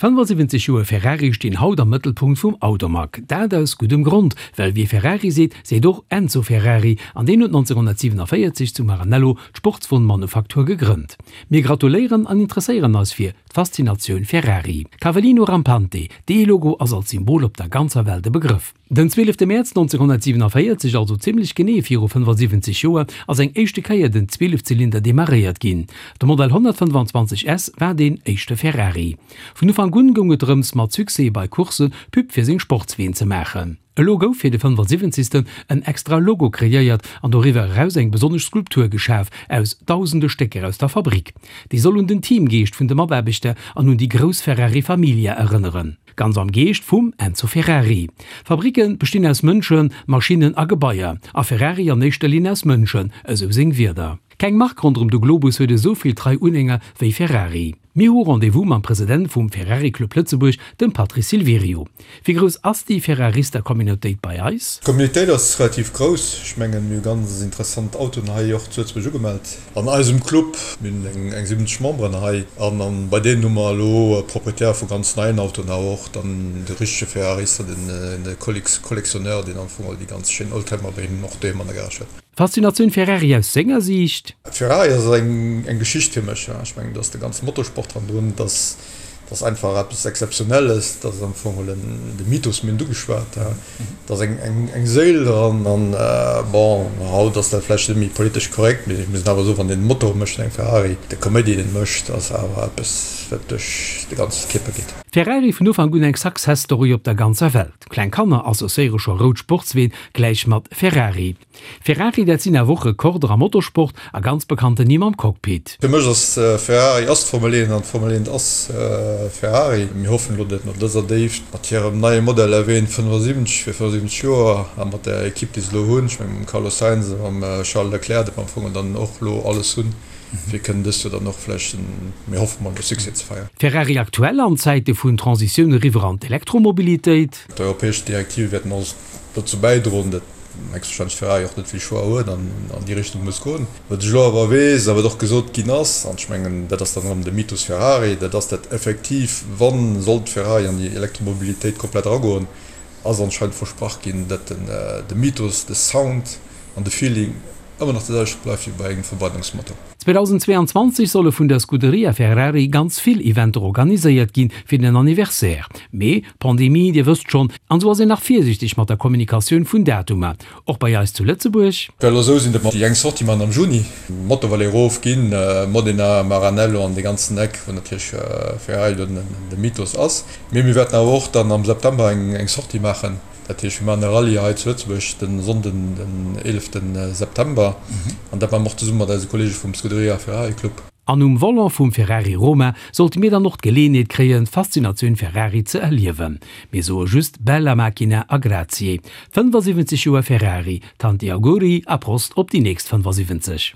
75 Joer Ferrari stinn haut am Mëttelpunkt vum Automag. Dat aus guddem Grond, well wie Ferrari seet, seet och Enzo Ferrari, an deen huet 1947 zu Maranello d'Sportswon-Manufaktur gegrënnt. Mir gratuléieren an interesséieren eis fir d'Faszinatioun Ferrari. Cavallino Rampante, dee Logo ass als Symbol op der ganzer Welt e Begrëff. Den 12 Mäerz 1947, also zimmlech genee viru 75 Joer, ass eng éischte Kéier den Zwielefzylinder demarréiert ginn. De Modell 125 S war deen éischte Ferrari. Vun Ufank un goung et drëms, mat Succès bei Coursse Pub fir seng Sportsween ze maachen. Elo gouf fir de 75. En extra Logo kreéiert an doriwwer eraus eng besonnesch Skulptur geschaf aus dausende Stécker aus der Fabrik. Déi soll un den Teamgeescht vun de Mataarbechter an un déi grouss Ferrari Familia erënneren. Ganz am Geescht vum Enzo Ferrari. Fabricke bestinn aus Mënschen, Maschinnen a Gebaier, a Ferrari an éischter Linn aus Mënschen, esou seng Wierder. Keng Mark ronderëm de Globus huet esou vill trei Unhänger wéi Ferrari. Mir hu Rendez-vous mam President vum Ferrari Club Lëtzebuerg, dem Patrice Silverio. Wéi grouss ass déi Ferrarista-Communautéit bei eis? D'Communautéit ass relativ grouss. Ech mengen, mir hu ganz interessant Autoen hei och zu Lëtzebuerg ugemellt an eisem Club. Mir hunn eng 70 Memberen hei an bei deenen hu mer elo Propriétaire vu ganz neien Autoen, awer och dann de richtege Ferrarista, den Collectionneur, deen am Fong all déi ganz schéin Oldtimer bei him och doheem an der Garage huet. Faszinatioun Ferrari aus senger Siicht? Ferrari ass eng Geschicht fir mech. Ech mengen, do ass de ganze Motorsport hannendrun. Dat ass einfach eppes Exzeptionelles. Dat ass am Fong geholl de Mythos, mir hunn et ugeschwat. Do ass eng Séil dran. An bon, haut ass dat vläicht net méi politesch korrekt, mee ech muss awer soen, wann een Motor mécht an engem Ferrari, de Kaméidi, deen e mécht, ass awer eppes, wat duerch de ganze Kierper geet. Ferrari vun Ufank un eng Success Story op der ganzer Welt. Kleng Kanner associéiere scho rout Sportsween gläich mat Ferrari. Ferrari, dat sinn awer och Rekorder am Motorsport a ganz bekannten Nimm am Cockpit. Fir mech ass Ferrari ass d'Formel 1 an d'Formel 1 ass Ferrari. Mir hoffen elo, datt no dëser Déift mat hirem neie Modell F1 75 fir 75 Joer a mat der Ekipp déi se elo hunn, ech mengen mam Carlos Sainz a mam Charles Leclerc, datt mer am Fong dann och elo alles hunn, fir kënnen dëst Joer dann och vläicht en, mir hoffe mol, e Succès ze feieren. Ferrari aktuell an Zäite vun Transitioun eriwwer an d'Elektromobilitéit. D'europäesch Direktive wäerten och dozou bäidroen, datt héchstwahrscheinlech Ferrari och net vill Choix huet an an déi Richtung muss goen. Wat ech elo awer weess a wat och gesot ginn ass, an ech mengen, dat ass dann erëm de Mythos Ferrari, dat ass, datt effektiv, wa sollt Ferrari an déi Elektromobilitéit komplett eragoen, ass anscheinend versprach ginn, datt de Mythos, de Sound an de Feeling ëmmer nach de selwechte bleift wéi bei engem Verbrennungsmotor. 2022 solle vun der Scuderia Ferrari ganz vill Eventer organiséiert ginn fir den Anniversaire. Mee, Pandemie, dir wësst schonn, an sou ass een nach virsiichteg mat der Kommunikatioun vun Datumer. Och bei eis zu Lëtzebuerg. Well elo sou sinn, datt mer déi eng Sortie maachen am Juni, Motto Valley erof ginn, Modena, Maranello an dee ganzen Eck, wou natierlech Ferrari do de Mythos ass. Mee mir wäerten awer och dann am September eng Sortie maachen. Dat heescht, mir maachen e Rallye hei zu Lëtzebuerg de Sonnden, den 11 September. An dat maache mer och zesumme mat eise Kolleege vum Scuderia Ferrari Club. An um Volant vum Ferrari Roma sollte mir dann och d'Geleeënheet kréien, d'Faszinatioun Ferrari ze erliewen. Mir soe just Bella macchina a grazie. 75 Joer Ferrari, tanti auguri a Prost op déi nächst 75!